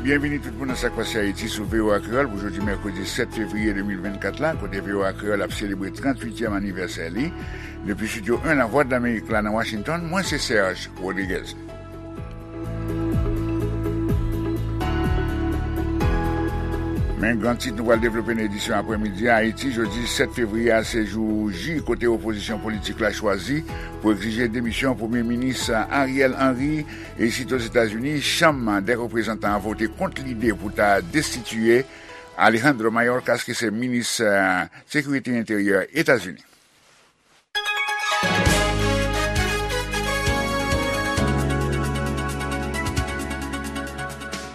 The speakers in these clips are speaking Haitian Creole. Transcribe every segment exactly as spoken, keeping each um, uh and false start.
Byenvini tout moun nan Sa k Pase Ayiti sou V O A Kreyòl pou jodi mèkredi sèt fevriye de mil vennkat la, kote V O A Kreyòl ap selebre tranntuityèm anivèsè li. Depi Estidyo en Lavwadlamerik la nan Washington, mwen se Serge Rodriguez. Men gran tit nou pral devlope nan edisyon aprèmidi a: Ayiti, jodi sèt fevriye a, se jou J kote opozisyon politik la chwazi pou egzije demisyon Premye Minis Ariel Henry. E isit Ozetazini, Chanm dè Reprezantan an vote kont lide pou ta destitiye Alejandro Mayorkas, ki se minis, eh, sekirite enteryè Etazini.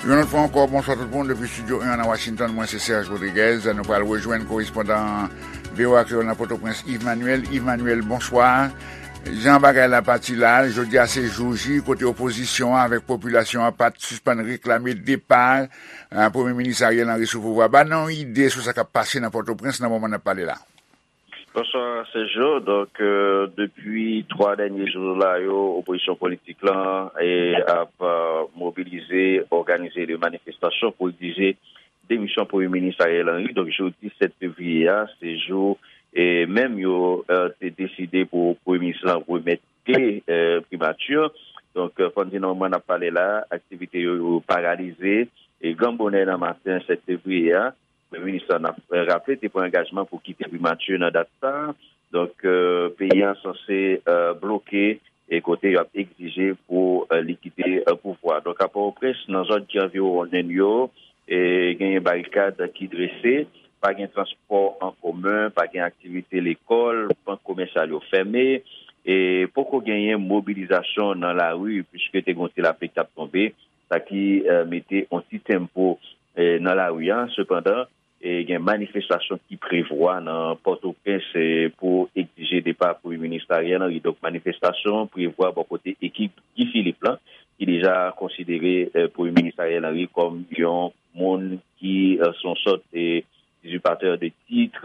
Yon lòt fwa ankò, bonswa tout moun depi Estidyo en nan Washington. Mwen se Serge Rodriguez. Nou pral rejwenn korespondan V O A Kreyòl nan Pòtoprens, Yves Manuel. Yves Manuel, bonswa. Jan bagay la pati la, jodi a se jou J kote opozisyon an avèk popilasyon an pa t sispann reklame depa, eh, Premye Minis Ariel Henry sou pouvwa. Ba n yon ide sou sa k ap pase nan Pòtoprens nan moman n ap pale la. Bonswa, Sergio. Donk, euh, depi twa dènye jou la yo, opozisyon politik lan e ap, euh, mobilize, òganize de manifestasyon pou egzije demisyon Premye Minis Ariel Henry. Donk, jodi sèt fevriye a, se jou, e menm yo, euh, te deside pou Premye Minis lan remèt kle, euh, primati. Donk, euh, fò n di nan moman n ap pale la, aktivite yo, yo paralize. E gran bonè nan maten sèt fevriye a, Premye Minis lan, n ap raple, te pran angajman pou kite primati nan dat sa a. Donk, euh, peyi a sanse, euh, bloke e kote y ap egzije pou, euh, li kite, euh, pouvwa. Donk, a Pòtoprens, nan zòn ki anviwonnen yo, e genyen barikad ki drese, pa gen transpò an komen, pa gen aktivite lekòl, bank komèsyal yo fèmen, e poko genyen mobilizasyon nan lari, piske te gen yon ti lapli k t ap tonbe, sa ki, euh, mete yon ti tenpo, euh, nan lari a. Sepandan, e gen manifestasyon ki prevwa nan Pòtoprens, e pou egzije depa Premye Minis Ariel Henry. Donk, manifestasyon prevwa bò kote ekip Guy Philippe lan, ki deja konsidere, e, Premye Minis Ariel Henry kòm yon moun ki, e, se yon sòt, e, izipatè de tit,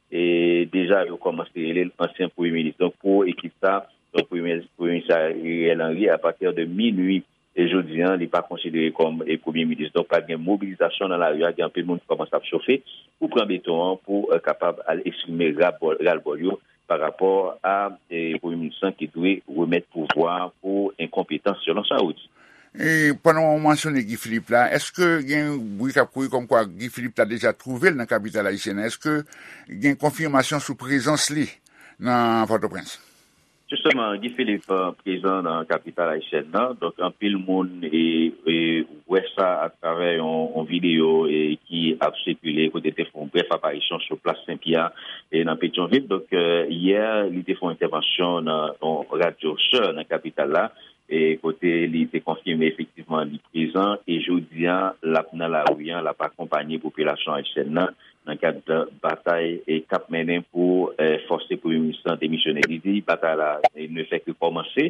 e, deja yo kòmanse rele l ansyen Premye Minis. Donk, pou ekip sa, donk, Premye, Premye Minis Ariel Henry, apati de minui, e jodi a, li pa konsidere kòm, e, Premye Minis. Donk, pral gen mobilizasyon nan lari a, gen anpil moun ki kòmanse ap chofe pou pran beton an, pou, e, kapab al eksprime rabò-, ralbòl yo pa rapò a, e, Premye Minis lan ki dwe remèt pouvwa a pou enkonpetans, selon sa yo di. E pandan w mansyone Guy Philippe la, èske gen bri k ap kouri kòmkwa Guy Philippe ta deja twouve l nan kapital ayisyèn nan? Èske gen konfimasyon sou prezans li nan Pòtoprens? Jisteman, Guy Philippe, euh, prezan nan kapital ayisyèn nan. Donk, anpil moun, e, e, wè sa atravè yon, yon videyo, e, ki ap sikile, kote l te fè yon brèf aparisyon sou plas Sen Pyè, e, nan Petyonvil. Donk, euh, yè, li te fè yon entèvansyon nan yon radyo sè nan kapital la, e, kote li te konfime efektivman li prezan, e jodi a, l ap nan lari a, l ap akonpanye popilasyon ayisyèn nan nan kad batay, e, k ap mennen pou, e, fòse Premye Minis lan demisyone. Li di batay la, e, ne fè ke kòmanse.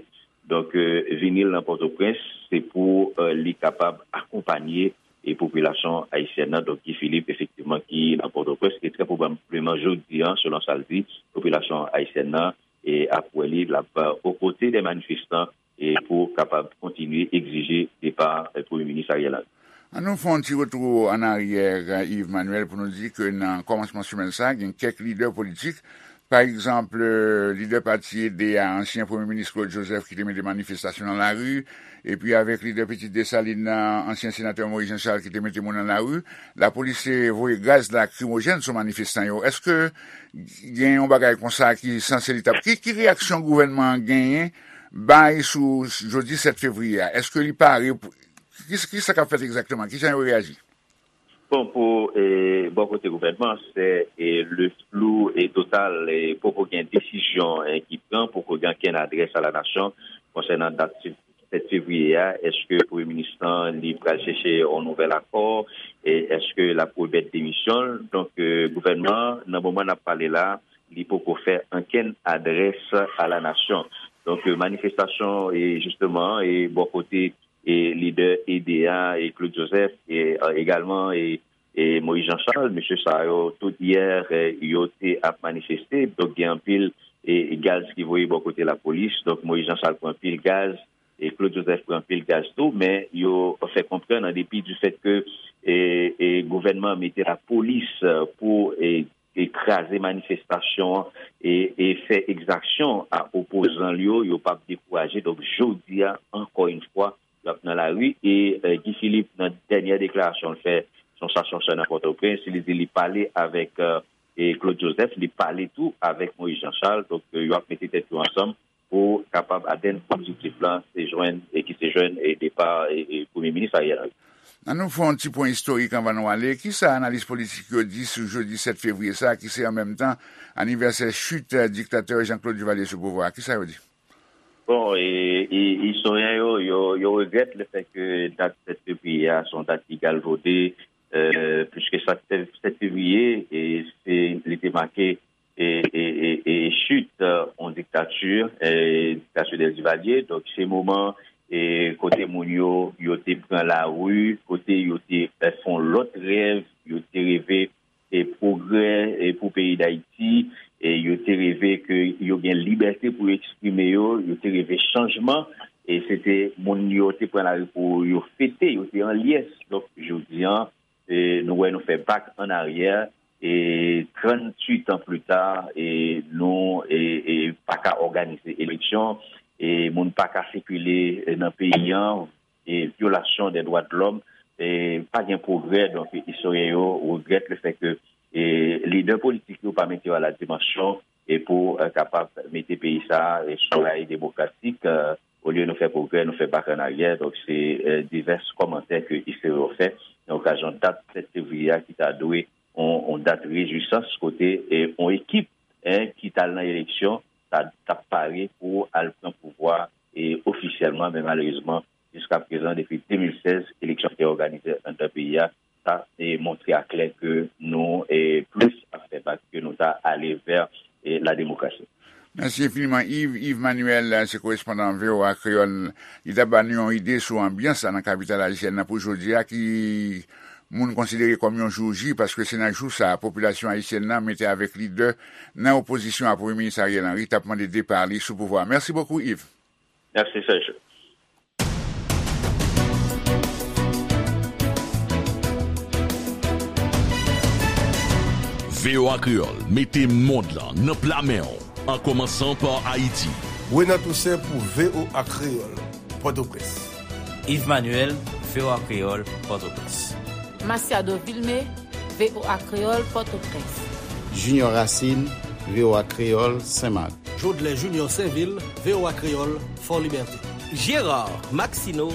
Donk, e, vini l nan Pòtoprens, se pou, e, li kapab akonpanye, e, popilasyon ayisyèn nan. Donk, Guy Philippe, efektivman, ki nan Pòtoprens, e trè pwobableman jodi a, selon sa l di, popilasyon ayisyèn nan, e, ap wè li, l ap, e, o kote de manifestan, e pou kapab kontinye egzije depa, e, Premye Minis Ariel Henry. An nou fè yon ti retou an aryè, Yves Manuel, pou nou di ke nan kòmansman semèn sa, gen kèk lidè politik, pa egzanp, lidè pati E D A, ansyen Premye Minis Claude Joseph, ki te mete manifestasyon nan lari, epi avèk lidè Pitit Desalin nan, ansyen senatè Moïse Jean Charles, ki te mete moun nan lari, lapolis te voye gaz lakrimojèn sou manifestan yo. Èske gen yon bagay konsa ki sanse li t ap, ki, ki reyaksyon gouvènman an genyen bay sou jodi sèt fevriye a? Èske li pare pou, ki, ki sa k ap fèt egzakteman? Kijan yo reyaji? Bon, pou, e, bò kote gouvènman, se, e, le flou e total, e poko gen desizyon, e, ki pran, poko gen okenn adrès a la nasyon konsènan dat sèt fevriye a. Èske Premye Minis lan, li pral chèche yon nouvèl akò? E èske l ap remèt demisyon l? Donk, e, gouvènman an, nan moman n ap pale la, li poko fè okenn adrès a la nasyon. Donk, e, manifestasyon, e, jisteman, e, bò kote, e, lidè E D A, e, Claude Joseph, e, e, egalman, e, e, Moïse Jean Charles, mesye sa yo, tout yè, e, yo te ap manifeste. Donk, gen anpil, e, gaz ki voye bò kote lapolis. Donk, Moïse Jean Charles pran anpil gaz, E Claude Joseph pran anpil gaz tou, men yo fè konprann, an depi di fèt ke, e, e, gouvènman an mete lapolis, e, pou, e, e kraze manifestasyon an e, e fè egzaksyon a opozan l yo, yo p ap dekouraje. Donk, jodi a, ankò yon fwa, y ap nan lari. E, e, Guy Philippe, nan dènyè deklarasyon l fè, se yon stasyon sè nan Pòtoprens, li di li pale avèk, e, e Claude Joseph, li pale tou avèk Moïse Jean Charles. Donk, e, yo ap mete tèt yo ansanm pou kapab atenn objektif la, se jwenn, e ki se jwenn, e depa, e, e Premye Minis Ariel Henry. Ann nou fè yon ti pwen istorik anvan nou ale. Kisa analis politik yo di sou jodi sèt fevriye sa a, ki se an menm tan anivèsè chit, e, diktatè Jean Claude Duvalier sou pouvwa a? Kisa yo di? Bon, e, e, istoryen yo, yo, yo regrèt le fèt ke dat sèt fevriye a se yon dat ki galvode, e, piske sa sèt fevriye, e, se, li te make e, e, e, e chit, e, yon diktati, e, diktati Duvalier. Donk, se moman, e, kote moun yo, yo te pran lari, kote yo te, e, fè yon lòt rèv, yo te reve, e, pwogrè, e, pou peyi Dayiti, e, yo te reve ke yo gen libète pou yo eksprime yo, yo te reve chanjman, e se te moun yo te pran lari pou yo fete, yo te an lyès. Donk, jodi an, e, nou wè nou fè bak an aryè, e tranntuit an pli ta, e nou, e, e pa ka òganize eleksyon, e moun pa ka sikile, e, nan peyi an, e vyolasyon dè dwa de lòm, e pa gen pwogrè. Donk, istoryen yo regrèt le fèt ke, e lidè politik yo pa mete yo a la dimansyon, e pou, e, kapab mete peyi sa a, e, sou ray demokratik, e, olye nou fè pwogrè, nou fè bak an aryè. Donk, se, e, divès kòmantè ke istoryen yo fè nan okazyon dat sèt fevriye a, ki ta dwe yon, yon dat rejwisans kote, e, yon ekip, en, ki t al nan eleksyon, ta, t ap pare pou al pran pouvwa, e, ofisyèlman, men malerezman, jiska prezan, depi de mil sèz, eleksyon ki te òganize anndan peyi a, sa, e, montre aklè ke nou, e, plis ap fè bak ke nou ta ale vè, e, la demokrasi. Mèsi enfiniman, Yves. Yves Manuel, se korespondan V O A Kreyòl. Li t ap ba nou yon ide sou anbyans la nan kapital ayisyèn nan pou jodi a, ki moun konsidere kòm yon jou J, paske se nan jou sa a, popilasyon ayisyèn nan mete avèk lidè nan opozisyon a Premye Minis Ariel Henry t ap mande depa li sou pouvwa a. Mèsi bokou, Yves. Mèsi, Serge. V O A Kreyòl mete mond lan nan pla men w, an kòmansan pa Ayiti. Renan Toussaint pou V O A Kreyòl, Pòtoprens. Yves Manuel, V O A Kreyòl, Pòtoprens. Masiado Vilmé, V O A Kreyòl, Pòtoprens. Junior Racine, V O A Kreyòl, Senmak. Jodlè Junior Sainvil, V O A Kreyòl, Fò Libète. Gérard Maxineau,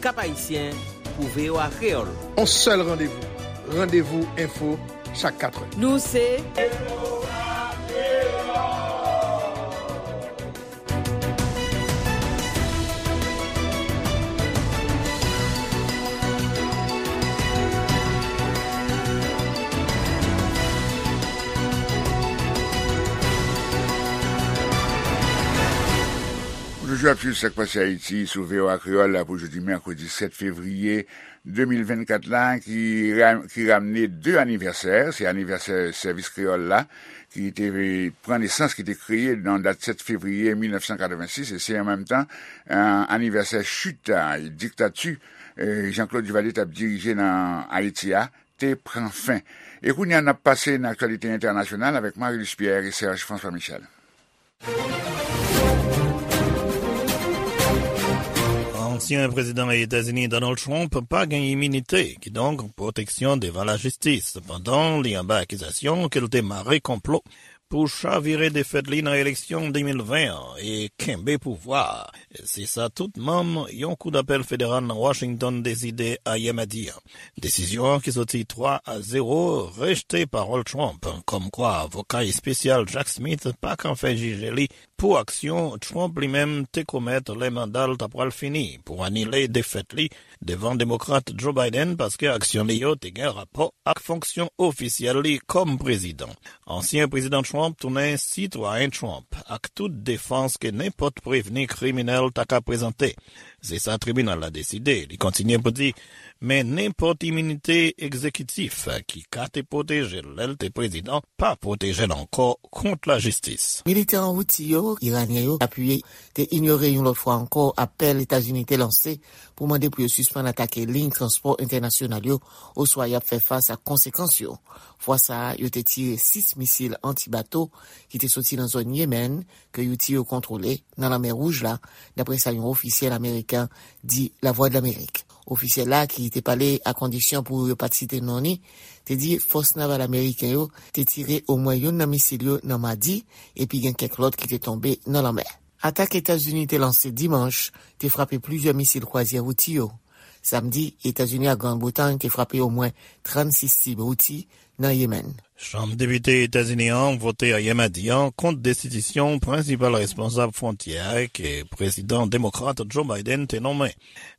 Cap-Haïtien, pou V O A Kreyòl. On sèl randevou, Randevou Enfo, chak katrè. Nou se Ou toujou ap swiv Sa k Pase Ayiti sou V O A Kreyòl la pou jodi mèkredi sèt fevriye de mil vennkat la, ki ra-, ki ramne de anivèsè. Se anivèsè Sèvis Kreyòl la, ki te pran nesans, ki te kreye nan dat sèt fevriye mil nèf san katrevensis, e se an menm tan, eh, anivèsè chit, eh, diktati, eh, Jean-Claude Duvalier t ap dirije nan Ayiti a, te pran fen. E kounye a, n ap pase nan aktyalite entènasyonal avèk Marie-Luce Pierre e Serge François Michel. Ansyen prezidan Etazini Donald Trump pa gen iminite, kidonk pwoteksyon devan lajistis, pandan li anba akizasyon ke l te mare konplo pou chavire defèt li nan eleksyon de mil ven an e kenbe pouvwa a. Se sa tout manm yon kou dapèl federal nan Washington deside ayè madi a. Desizyon an ki soti twa a zewo rejte pawòl Trump, kòmkwa avoka espesyal Jack Smith pa ka fè jije li pou aksyon Trump li menm te komèt lè manda l ta pral fini pou anile defèt li devan Demokrat Joe Biden, paske aksyon li yo te gen rapò ak fonksyon ofisyèl li kòm prezidan. Ansyen prezidan Trump tounen sitwayen Trump, ak tout defans ke nenpòt prevni kriminèl ta ka prezante. Se sa tribinal la deside. Li kontinye pou di, men nenpòt iminite egzekitif ki ka te pwoteje l lè l te prezidan pa pwoteje l ankò kont lajistis. Militè an Houthi yo Iranyen yo apiye te inyore yon lòt fwa ankò apèl Etazini te lanse pou mande pou yo sispann atake liy transpò entènasyonal yo, oswa y ap fè fas ak konsekans yo. Fwa sa a, yo te tire sis misil anti-bato ki te soti nan zòn Yemen ke Houthi yo kontwole nan Lanmè Wouj la, dapre sa yon ofisyèl ameriken di Lavwadlamerik. Ofisyèl la, ki te pale a kondisyon pou yo pa t site non li, te di fòs naval ameriken yo te tire omwen youn nan misil yo nan madi, epi gen kèk lòt ki te tonbe nan lanmè. Atak Etazini te lanse dimanch te frape plizyè misil kwazyè Houthi yo. Samdi, Etazini ak Grann Bretay te frape omwen trannsis sib Houthi nan Yemen. Chanm Depite Etazini an vote ayè madi an kont destitisyon prensipal responsab fwontyè a ke prezidan demokrat Joe Biden te nonmen.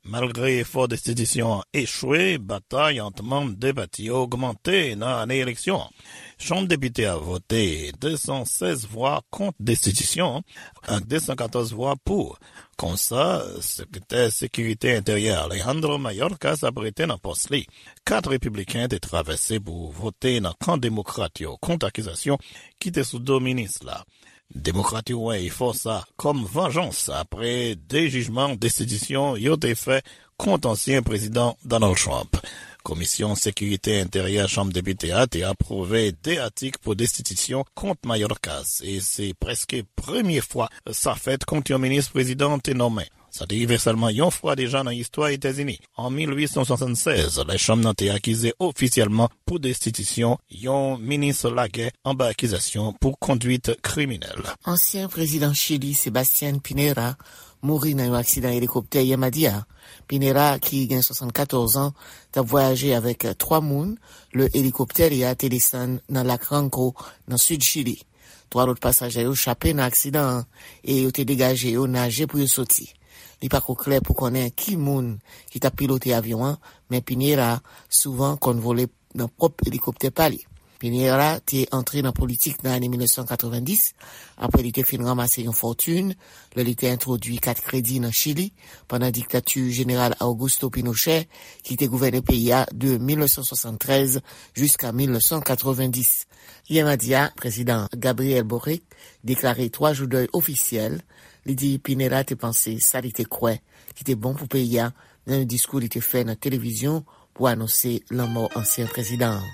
Malgre efò destitisyon an echwe, batay ant manm de pati yo ogmante nan ane eleksyon an. Chanm Depite a vote de san sèz vwa kont destitisyon an ak de san katòz vwa pou. Konsa, Sekretè Sekirite Enteryè Alejandro Mayorkas ap rete nan pòs li. Kat repibliken te travèse pou vote nan kan demokrat yo kont akizasyon ki te sou do minis la. Demokrat yo wè efò sa kòm vanjans apre de jijman destitisyon yo te fè kont ansyen prezidan Donald Trump. Komisyon Sekirite Enteryè Chanm Depite a te apwouve de atik pou destitisyon kont Mayorkas, e se prèske premye fwa sa fèt kont yon minis prezidan te nonmen. Sa te rive sèlman yon fwa deja nan istwa Etazini, an mil uit san swasannsèz, lè chanm nan te akize ofisyèlman pou destitisyon yon minis lagè anba akizasyon pou kondwit kriminèl. Ansyen prezidan Chili, Sebastián Piñera, mouri nan yon aksidan elikoptè yè madi a. Piñera, ki gen swasannkatòz an, t ap vwayaje avèk twa moun lè elikoptè li a te desann nan lak Ranco, nan sid Chili. Twa lòt pasaje yo chape nan aksidan an e yo te degaje yo naje pou yo soti. Li pako klè pou konnen ki moun ki t ap pilote avyon an, men Piñera souvan konn vole nan pwòp elikoptè pa li. Piñera te antre nan politik nan ane mil nèf san katrevenndis, apre li te fin ranmase yon fòtin lè li te entwodui kat kredi nan Chili pandan diktati Jeneral Augusto Pinochet, ki te gouvène peyi a de mil nèf san swasanntrèz jiska mil nèf san katrevenndis. Yè madi a, Prezidan Gabriel Boric deklare twa jou dèy ofisyèl. Li di Piñera te panse sa li te kwè ki te bon pou peyi a nan yon diskou li te fè nan televizyon pou anonse lanmò ansyen prezidan an.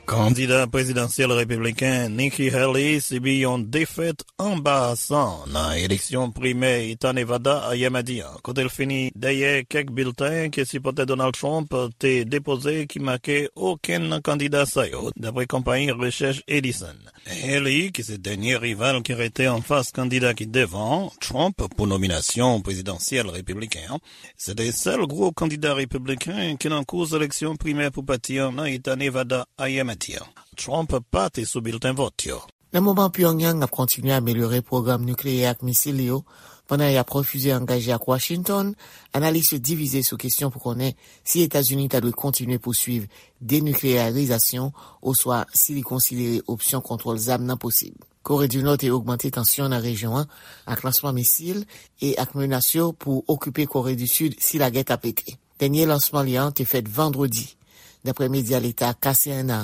Kandida prezidansyèl repibliken Nikki Haley sibi yon defèt anbarasan nan eleksyon primè Eta Nevada ayè madi a, kote l fini dèyè kèk bilten ke sipòtè Donald Trump te depoze ki make okenn nan kandida sa yo, dapre konpayi rechèch Edison. Haley, ki se dènye rival ki rete anfas kandida ki devan Trump pou nominasyon prezidansyèl repibliken an, se te sèl gwo kandida repibliken ki nan kous eleksyon primè pou pati an nan Eta Nevada ayè madi a. Trump pa te sou bilten vòt yo. Nan moman Pyongyang ap kontinye amelyore pwogram nikleyè ak misil li yo, pandan y ap refize angaje ak Washington, analis yo divize sou kesyon pou konnen si Etazini ta dwe kontinye pouswiv denikleyarizasyon oswa si li konsidere opsyon kontwòl zam nan posib. Kore di Nò te ogmante tansyon nan rejyon an ak lansman misil e ak menas yo pou okipe Kore di Sid si lagè ta pete. Dènye lansman li an te fèt vandredi. Dapre medya leta K C N A,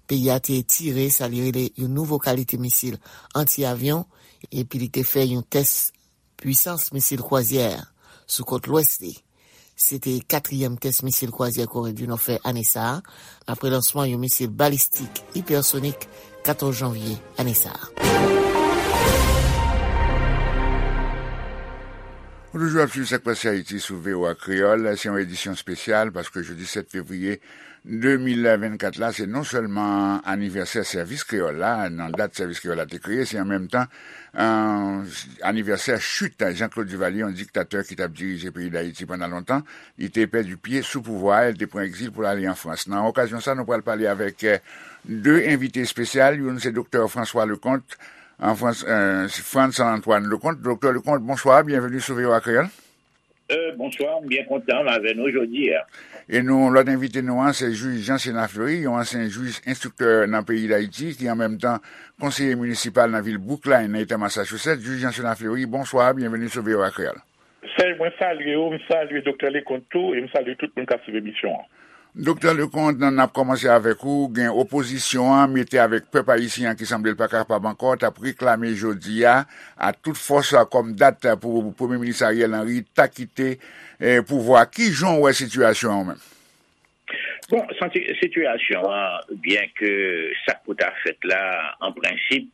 peyi a te tire sa li rele yon nouvo kalite misil anti-avyon, epi li te fè yon tès pwisans misil kwazyè sou kot lwès li. Se te katriyèm tès misil kwazyè Kore di Nò fè ane sa a, apre lansman yon misil balistik ipèsonik katòz janvye ane sa a. Ou toujou ap swiv Sak Pase Ayiti sou V O A Kreyòl. Se yon edisyon espesyal paske jodi sèt fevriye de mil vennkat la, se non sèlman anivèsè sèvis kreyòl la, nan dat sèvis kreyòl la te kreye, se an menm tan, euh, anivèsè chit Jean-Claude Duvalier, yon diktatè ki t ap dirije peyi Dayiti pandan lontan. Li te pèdi pye sou pouvwa a, li te pran egzil pou l ale an Frans. Nan okazyon sa, nou pral pale avèk, euh, de envite espesyal. Youn se Doktè François Leconte, an Frans, euh, Frantz Antoine Leconte. Doktè Leconte, bonswa, byenveni sou V O A Kreyòl. Euh, bonswa, m byen kontan m avè nou jodi a. E nou, lòt envite nou an, se jij Jean Sénat Fleury, yon ansyen jij enstriktè nan peyi Dayiti, ki an menm tan konseye minisipal nan vil Brookline, nan eta Massachusetts. Jij Jean Sénat Fleury, bonswa, byenveni sou V O A Kreyòl. Sèj, mwen salye w, m salye Doktè Leconte tou, e m salye tout moun k ap swiv emisyon an. Doktè Leconte, n ap kòmanse avèk ou. Gen opozisyon an mete avèk pèp ayisyen an ki sanble l pa kapab ankò, t ap reklame jodi a a tout fòs kòm dat pou Premye Minis Ariel Henry ta kite eh, pouvwa. Ki jan w wè sitiyasyon an menm? Bon, sitiyasyon an, byen ke sa k pou ta fèt la, an prensip,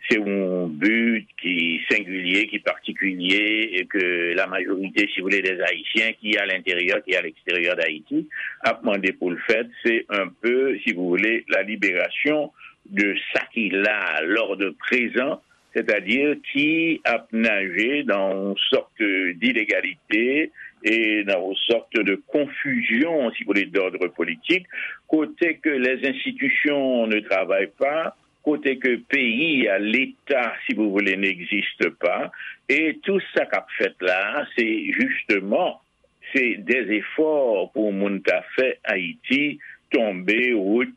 se yon bi ki sengilye, ki patikilye, e ke la majorite, si vous voulez, des Haïtiens ki a lenteryè, ki a leksteryè Dayiti, ap mande pou l fèt, se un peu, si vous voulez, la libération de sa ki la, l'ordre présent, c'est-à-dire qui ap nager dans une sorte d'illégalité et dans une sorte de confusion, si vous voulez, d'ordre politique, côté que les institutions ne travaillent pas, côté que pays, l'État, si vous voulez, n'existe pas, et tout ça qu'a fait là, c'est justement se dèzefò pou moun ta fè Ayiti tonbe,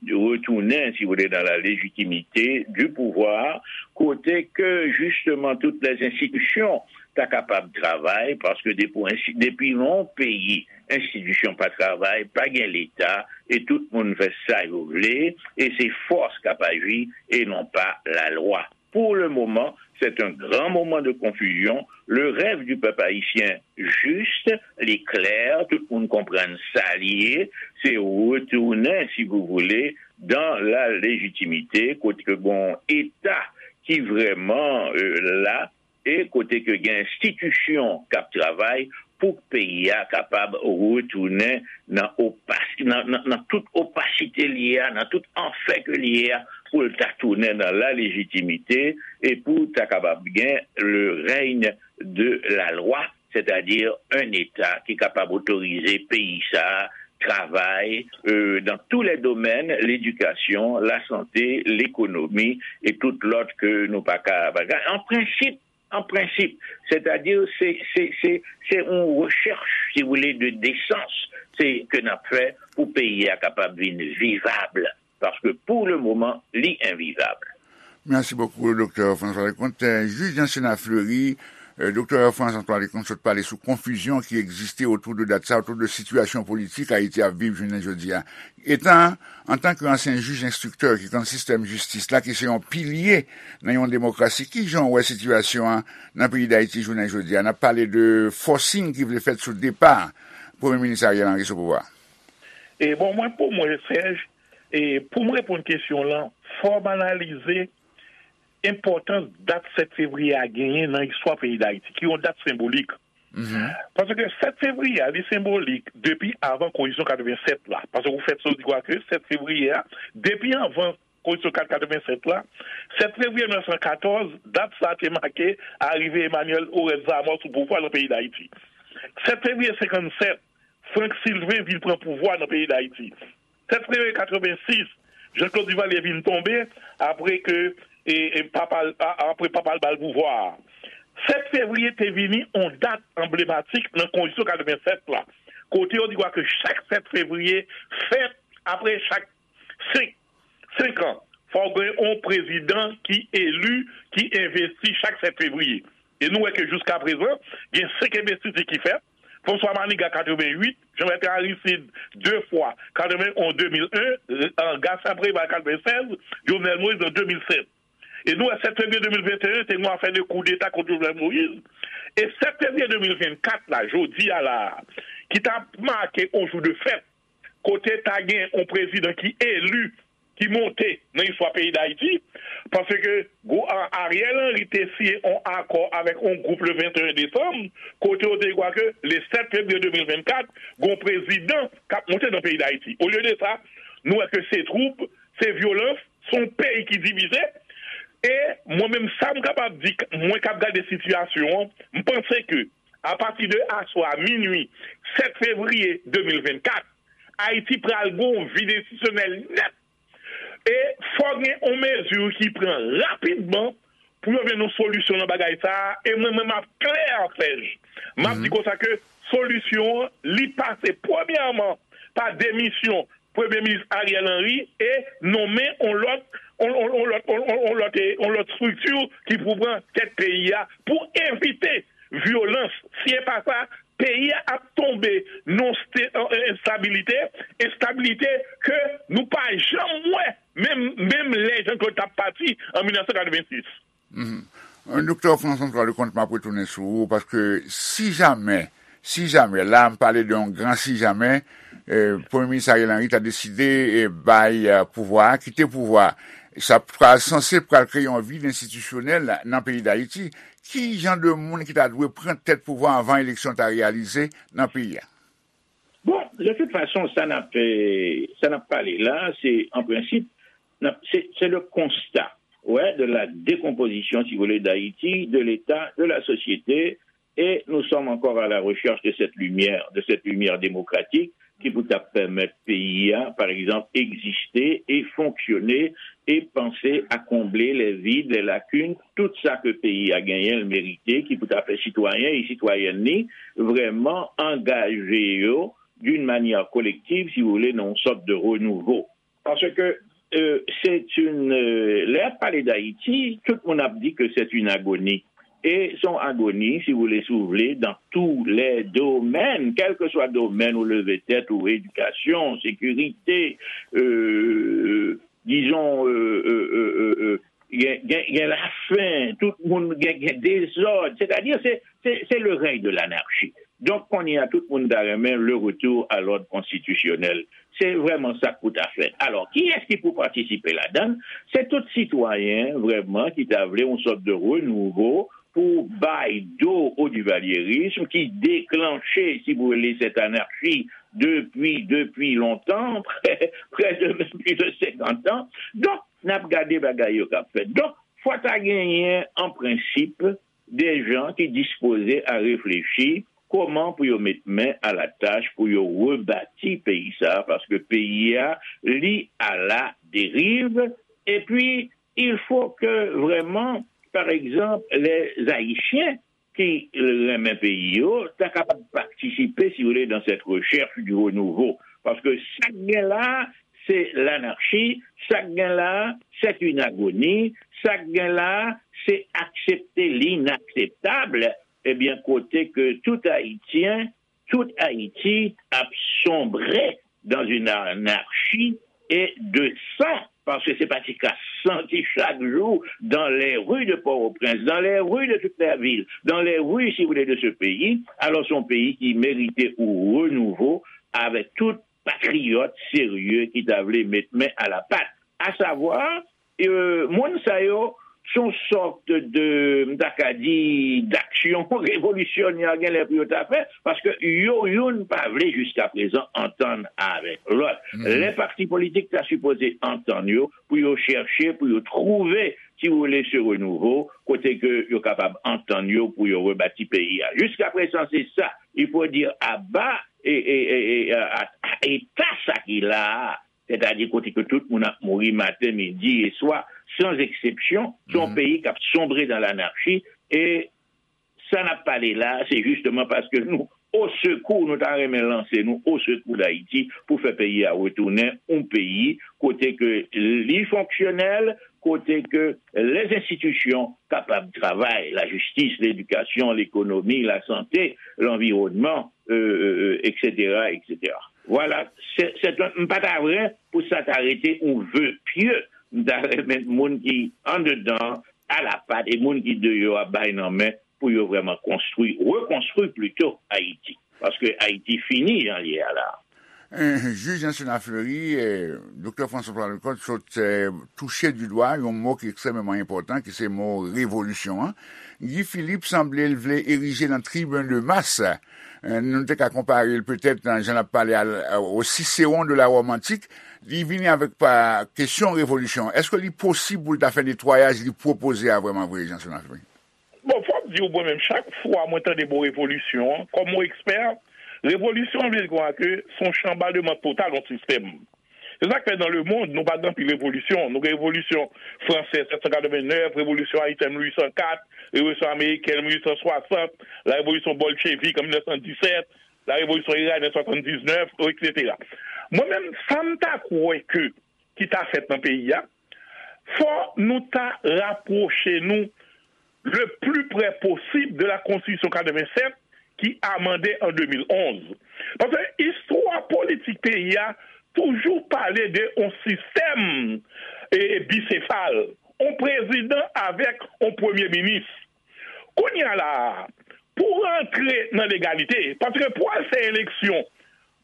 retounen, si vous voulez, dans la légitimité du pouvoir, kote ke jisteman tout les institutions ta kapab travay, paske depi yon peyi, enstitisyon pa travay, pa gen leta, e tout moun fè sa yo vle, e se fòs k ap aji, e non pa lalwa. Pour le moment, c'est un grand moment de confusion. Le rêve du peuple haïtien juste, li klè, tout moun konprann sa li ye, se retounen, si vous voulez, dans la légitimité, kote ke gon eta ki vrèman la, e kote ke gen enstitisyon k ap travay pou peyi a kapab retounen nan, opas, nan, nan, nan tout opasite li ye a, nan tout anfè ke li ye a, pou l ta tounen nan la légitimité e pou ta kapab gen le règne de la loi, c'est-à-dire un État ki kapab otorize peyi sa a travay euh, dans tous les domaines, l'éducation, la santé, l'économie et tout lòt ke nou pa ka bagay. An prensip, an prensip, c'est-à-dire se se se se yon rechèch, si vous voulez, de desans se ke n ap fè pou peyi a kapab vin vivab, paske pour le moment li envivab. Mèsi bokou, Doktè François Leconte. Jij Jansenna Fleury, Doktè François Leconte sot pale sou konfizyon ki egziste otou de dat sa, otou de sitiyasyon politik Ayiti ap viv jounen jodi a. Etan, antanke ansyen jij enstriktè ki konn sistèm jistis la, ki se yon pilye nan yon demokrasi, ki jan w wè sitiyasyon an nan peyi Dayiti jounen jodi a? N ap pale de fòsing ki vle fèt sou depa Premye Minis Ariel Henry sou pouvwa. E bon, mwen, pou mwen, Serge, e pou m reponn kesyon w lan, fò m analize enpòtans dat sèt fevriye a genyen nan istwa peyi Dayiti, ki yon dat senbolik. Paske sèt fevriye a, li senbolik depi avan konstitisyon katrevensèt la. Paske ou fèt sou di kwa ke sèt fevriye a, depi avan konstitisyon katrevensèt la, sèt fevriye mil nèf san katòz, dat sa a te make arive Emmanuel Oreste Zamor sou pouvwa nan peyi Dayiti. Sèt fevriye senkannsèt, Frank Sylvain vin pran pouvwa nan peyi Dayiti. Sèt fevriye katrevensis, Jean Claude Duvalier vin tonbe apre ke e, e, papa l, a- apre papa l ba l pouvwa a. Sèt fevriye te vini yon dat anblematik nan konstitisyon katrevensèt la, kote yo di kwa ke chak sèt fevriye fèt apre chak senk, senk an, fò w gen yon prezidan ki eli, ki envesti chak sèt fevriye. E nou wè ke jiskaprezan, gen senk envestiti ki fèt. François Manigat katrevenwit, Jean Bertrand Aristide de fwa, katrevenonz, de mil en, Gaston Préval katrevensèz, Jovenel Moïse an de mil sèt. E nou wè sèt fevriye de mil venteyen, te gen yon afè de koudeta kont Jovenel Moïse. E sèt fevriye de mil vennkat la, jodi a la a, ki t ap make yon jou de fèt, kote ta gen yon prezidan ki eli, ki monte nan istwa peyi Dayiti, paske Ariel Henry te siyen yon akò avèk yon gwoup le venteyen desanm, kote yo te di kwa ke le sèt fevriye de mil vennkat, gen yon prezidan k ap monte nan peyi Dayiti. Olye de sa, nou wè ke se twoub, se vyolans, se yon peyi ki divize. E mwen menm, sa m kapab di, mwen k ap gade sitiyasyon an, m panse ke apati de aswè a, minui, sèt fevriye de mil vennkat, Ayiti pral gen yon vid enstitisyonèl nèt. E fò gen yon mezi ki pran rapidman pou yo jwenn yon solisyon nan bagay sa a. E mwen menm, m ap klè, Serge, m ap di konsa ke solisyon an, li pase premyèman pa demisyon Premye Minis Ariel Henry e nonmen yon lòt, yon, yon, yon lòt, yon, yon, yon lòt, yon lòt estrikti ki pou pran tèt peyi a pou evite vyolans. Si e pa sa, peyi a ap tonbe nan yon ste- yon enstabilite, enstabilite ke nou pa janm wè, menm, menm lè Jean Claude t ap pati an mil nèf san katrevensis. Doktè François Leconte, m ap retounen sou ou, paske si jamè, si jamè, la m pale de yon gran si jamè, Premye Minis Ariel Henry ta deside bay pouvwa a, kite pouvwa a, sa pral sanse pral kreye yon vid enstitisyonèl nan peyi Dayiti. Ki jan de moun ki ta dwe pran tèt pouvwa anvan eleksyon ta reyalize nan peyi a? Bon, de toute façon, sa n ap sa n ap pale la, se an prensip, se le constat, ouais, de la décomposition, si vous voulez, d'Haïti, de l'État, de la société, et nous sommes encore à la recherche de cette lumière, de cette lumière démocratique qui pou ta pèmèt peyi a, par exemple, egziste e fonksyone e panse a konble les vides, les lacunes, tout sa ke peyi a genyen l merite, ki pou ta fè sitwayen e sitwayèn li vrèman angaje yo d'une manière collective, si vous voulez, nan yon sòt de renouveau. Parce que euh, c'est une euh, lè ap pale d'Haïti, tout moun ap di que c'est une agonie. Et son agonie, si vous voulez, si vous voulez, dans tous les domaines, quel que soit domaine ou lever tête ou éducation, sécurité, euh, disons, euh, euh, euh, euh, gen, gen, gen lafen, tout moun gen, gen dezòd. Sètadi, se, se, se le rèy de lanarchi. Donk, kounye a, tout moun ta renmen le retour à l'ordre constitutionnel. Se vrèman sa k pou ta fèt. Alò, kiyès ki pou patisipe ladan l? Se tout sitwayen, vrèman, ki ta vle yon sòt de renouvo pou bay do o divalyerism ki deklanche, si vous voulez, cette anarchie depuis, depuis longtemps, près de même plus de cinquante ans. Donk, n ap gade bagay yo k ap fèt. Donk, fò ta genyen, an prensip, de jan ki dispoze a reflechi kòman pou yo met men a la tach pou yo rebati peyi sa a, paske peyi a, li à la dérive. Epi, il faut que vraiment, par exemple, les Haïtiens ki renmen peyi yo, ta kapab patisipe, si vous voulez, dans cette recherche du renouveau. Paske sa k gen la, se lanarchi, sa k gen la, c'est une agonie, sa k gen la, se aksepte l'inakseptab, ebyen, kote ke tout Ayisyen, tout Ayiti ap sonbre dans une anarchie et de sang, paske se pa ti ka san ki chak jou dans les rues de Port-au-Prince, dans les rues de toute la ville, dans les rues, si vous voulez, de ce pays. Alors, c'est un pays qui méritait un renouveau avec tout patriyòt serye ki ta vle met men a la pat. A savwa, euh, moun sa yo, se yon sòt de, m ta ka di, d'action révolutionnaire gen lè pou yo ta fè, paske yo youn pa vle jiska prezan antann avèk lòt. Lè pati politik ta sipoze antann yo pou yo chèche, pou yo twouve, si vous voulez, ce renouveau, kote ke yo kapab antann yo pou yo rebati peyi a. Jiska prezan, se sa. Il faut dire à bas et, et, et, et à, à, à état sa ki la a. Sètadi kote ke tout moun ap mouri maten, midi e swa, sans exception, se yon peyi k ap sonbre dans l'anarchie. E sa n ap pale la, se jisteman paske nou o sekou, nou ta renmen lanse nou o sekou Dayiti pou fè peyi a retounen yon peyi kote ke li fonksyonèl, kote ke les institutions kapab travay, la justice, l'éducation, l'économie, la santé, l'environnement, euh, euh, euh, et cetera, et cetera. Voilà, se, se, m pa ta vre pou sa ta rete yon ve pye. M ta renmen moun ki andedan, alapat, e moun ki deyò a bay nan men pou yo vrèman konstwi, rekonstwi plito Ayiti. Paske Ayiti fini jan l ye a la. Jij Anselme Fleury, Doktè François Paul Leconte sot touche di dwa yon mo ki ekstrèmeman enpòtan, ki se mo revolisyon an. Guy Philippe sanble l vle erije nan tribin de mas. Nou te ka konpare l petèt nan jan l ap pale a, au Cicéron de la Rome antique. Li vini avèk pa kesyon revolisyon. Èske li posib pou l ta fè netwayaj li pwopoze a vrèman vre, Jan Anselme Fleury? Bon, fòk di w, mwen menm, chak fwa mwen tande mo revolisyon an, kòm yon ekspè, revolisyon vle di kwa ke se yon chanbaleman total yon sistèm. Se sa k fè nan lemonn, nou pa gen anpil revolisyon. Nou gen revolisyon fransèz sèt san katrevennnèf, revolisyon ayisyen mil uit san kat, revolisyon amerikèn mil uit san swasant, la revolisyon bolchevik an mil nèf san disèt, la revolisyon iranyen swasanndiznèf, etsetera. Mwen menm, sa m ta kwè ke ki ta fèt nan peyi a, fò nou ta rapwoche nou le plus près possible de la Constitution quatre-vingt-sept, ki amande an de mil onz. Paske istwa politik peyi a toujou pale de yon sistèm e, e bisefal, yon prezidan avèk yon premye minis. Kounye a la a, pou rantre nan legalite, paske pou al fè eleksyon,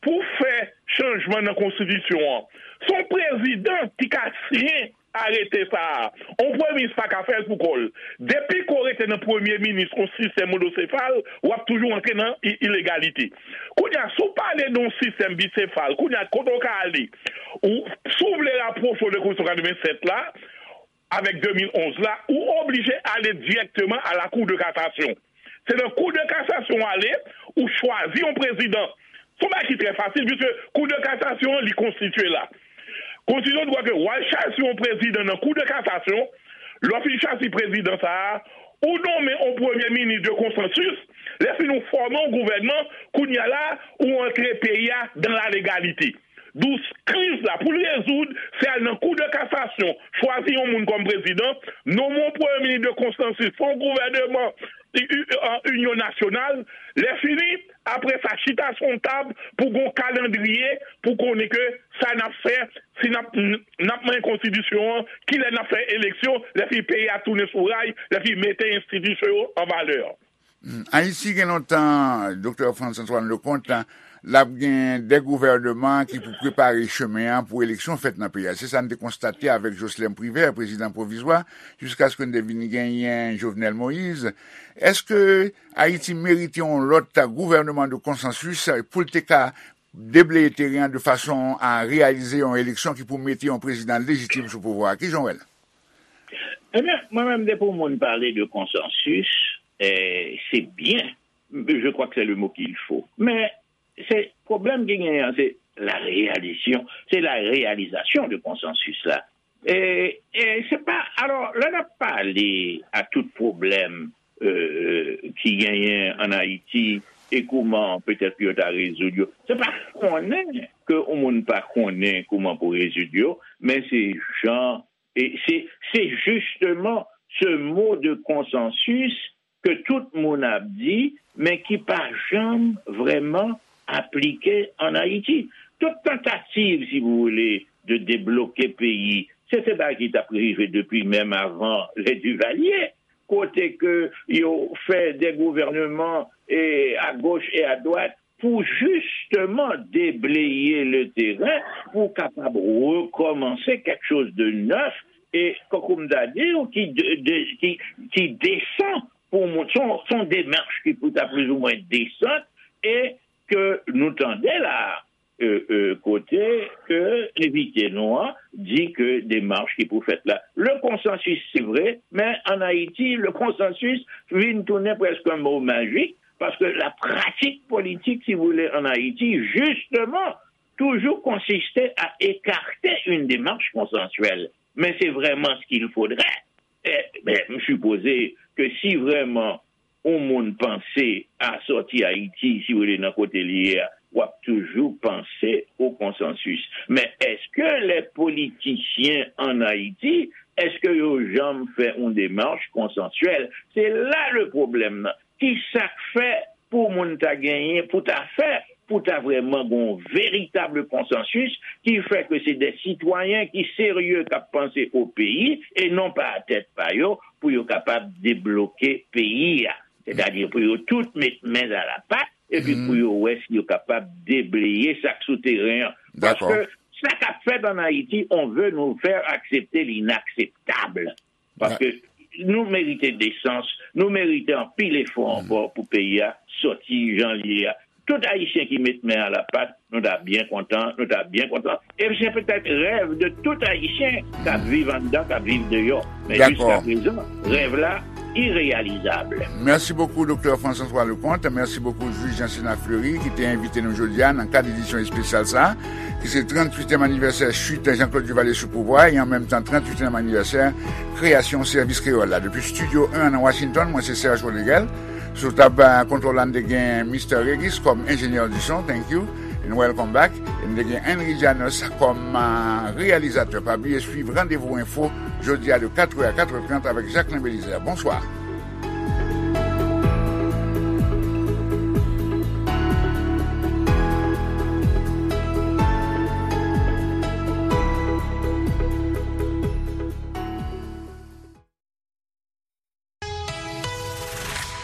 pou fè chanjman nan konstitisyon an, se yon prezidan ki ka siyen arete sa a. Yon premye minis pa ka fè l pou kò l. Depi ke w rete nan premye minis yon sistèm monosefal, w ap toujou rantre nan i- ilegalite. Kounye a, si w pale de yon sistèm bisefal, kounye a, kote w ka ale? Ou, si w vle rapwoche w de konstitisyon katrevennsèt la, avèk de mil onz la, ou oblije ale dirèkteman a la Cour de cassation. Se nan Cour de cassation w ale, ou chwazi yon prezidan. Se yon bagay ki trè fasil, piske Cour de cassation an, li konstitye la. Konstitisyon di w ke w al chwazi yon prezidan nan Cour de cassation, lè w fin chwazi prezidan sa a, ou nonmen yon premye minis de konsansis, lè fini ou fòme yon gouvènman, kounye a la, ou antre peyi a dan la legalite. Donk, kriz la, pou l rezoud, se al nan Cour de cassation, chwazi yon moun kòm prezidan, nonmen yon premye minis de konsansis, fè yon gouvènman i- i- an inyon nasyonal, lè fini, apre sa, chita sou yon tab pou gon kalandriye, pou konnen ke sa n ap fè, si n ap n ap manyen konstitisyon an, kilè n ap fè eleksyon, lè fini peyi a tounen sou ray, lè fini mete enstitisyon yo an valè. Ayiti gen lontan, Doktè Frantz Antoine Leconte, l ap gen de gouvèneman ki pou prepare chemen an pou eleksyon fèt nan peyi a. Se sa n te konstate avèk Jocelerme Privert, prezidan pwovizwa, jiskaske n te vin genyen Jovenel Moïse. Èske Ayiti merite yon lòt gouvèneman de konsansis pou l te ka debleye teren an de fason a reyalize yon eleksyon ki pou mete yon prezidan lejitim sou pouvwa a? Kijan w wè l? Ebyen, mwen menm, depi yon moun pale de konsansis, eh, se byen. Je crois que c'est le mot qu'il faut. Men, se pwoblèm ki genyen an, se la réalisation, c'est la réalisation de konsansis la. E, e se pa, alò, lè n ap pale a tout pwoblèm, euh, ki genyen an Ayiti e kouman petèt yo ta rezoud yo, se pa konnen ke yon moun pa konnen kouman pou rezoud yo, men se jan, e se, se justement ce mot de consensus ke tout moun ap di, men ki pa janm vrèman aplike an Ayiti. Tout tantativ, si vous voulez, de debloke peyi, se te bagay ki t ap rive depi menm avan les Duvalier, kote ke yo fè de gouvèneman e a goch e a dwat pou jisteman debleye le teren, pou kapab rekòmanse kèk choz de nèf, e, kankou m ta di w, ki de, de, ki, ki desan pou moun. Se yon, se yon demach ki pou ta plizoumwen desan, e ke nou tande la, euh, euh, kote ke envite nou an di ke demach ki pou fèt la. Le konsansis, se vre, men an Ayiti, le konsansis vin tounen prèske yon mo majik, paske la pratik politik, si vous voulez, an Ayiti, jisteman, toujou konsiste a ekate yon demach konsansyèl. Men se vrèman ce qu'il faudrait. E, ben, m sipoze ke si vrèman yon moun panse a sòti Ayiti, si w rete nan kote li ye a, w ap toujou panse o konsansis. Men èske lè politisyen an Ayiti, èske yo janm fè yon demach konsansyèl? Se la le pwoblèm nan. Ki sa k fè pou moun ta genyen, pou ta fè, pou ta vrèman gen yon veritab konsansis ki fè ke se de sitwayen ki serye k ap panse o peyi e non pa a tèt pa yo pou yo kapab debloke peyi a. Sètadi pou yo tout met men a la pat epi pou yo wè si yo kapab debleye sa k sou teren an. Paske sa k ap fèt an Ayiti, on veut nous faire accepter l'inakseptab. Paske nou merite desans, nou merite anpil efò ankò pou peyi a sòti jan l ye a. Tout Ayisyen ki met men a la pat, nou ta byen kontan, nou ta byen kontan. E se petèt rèv de tout Ayisyen k ap viv anndan, k ap viv deyò. Men jiska prezan, rèv la ireyalizab. Mèsi bokou, Doktè Frantz Antoine Leconte. Mèsi bokou, jij Jean Sénat Fleury, ki te envite nou jodi a nan kad edisyon espesyal sa a, ki se tranntuityèm anivèsè chit Jean-Claude Duvalier sou pouvwa e an menm tan tranntuityèm anivèsè kreyasyon Sèvis Kreyòl la. Depi Estidyo en nan Washington, mwen se Serge Rodriguel. Sou tab, eh, kontwòl la, n te gen Mister Regis kòm enjenyè di son, thank you, and welcome back. E n te gen Henry Janus kòm, eh, reyalizatè. Pa bliye swiv Randevou Enfo jodi a de katrè a katrè trant avèk Jacquelin Belizaire. Bonswa.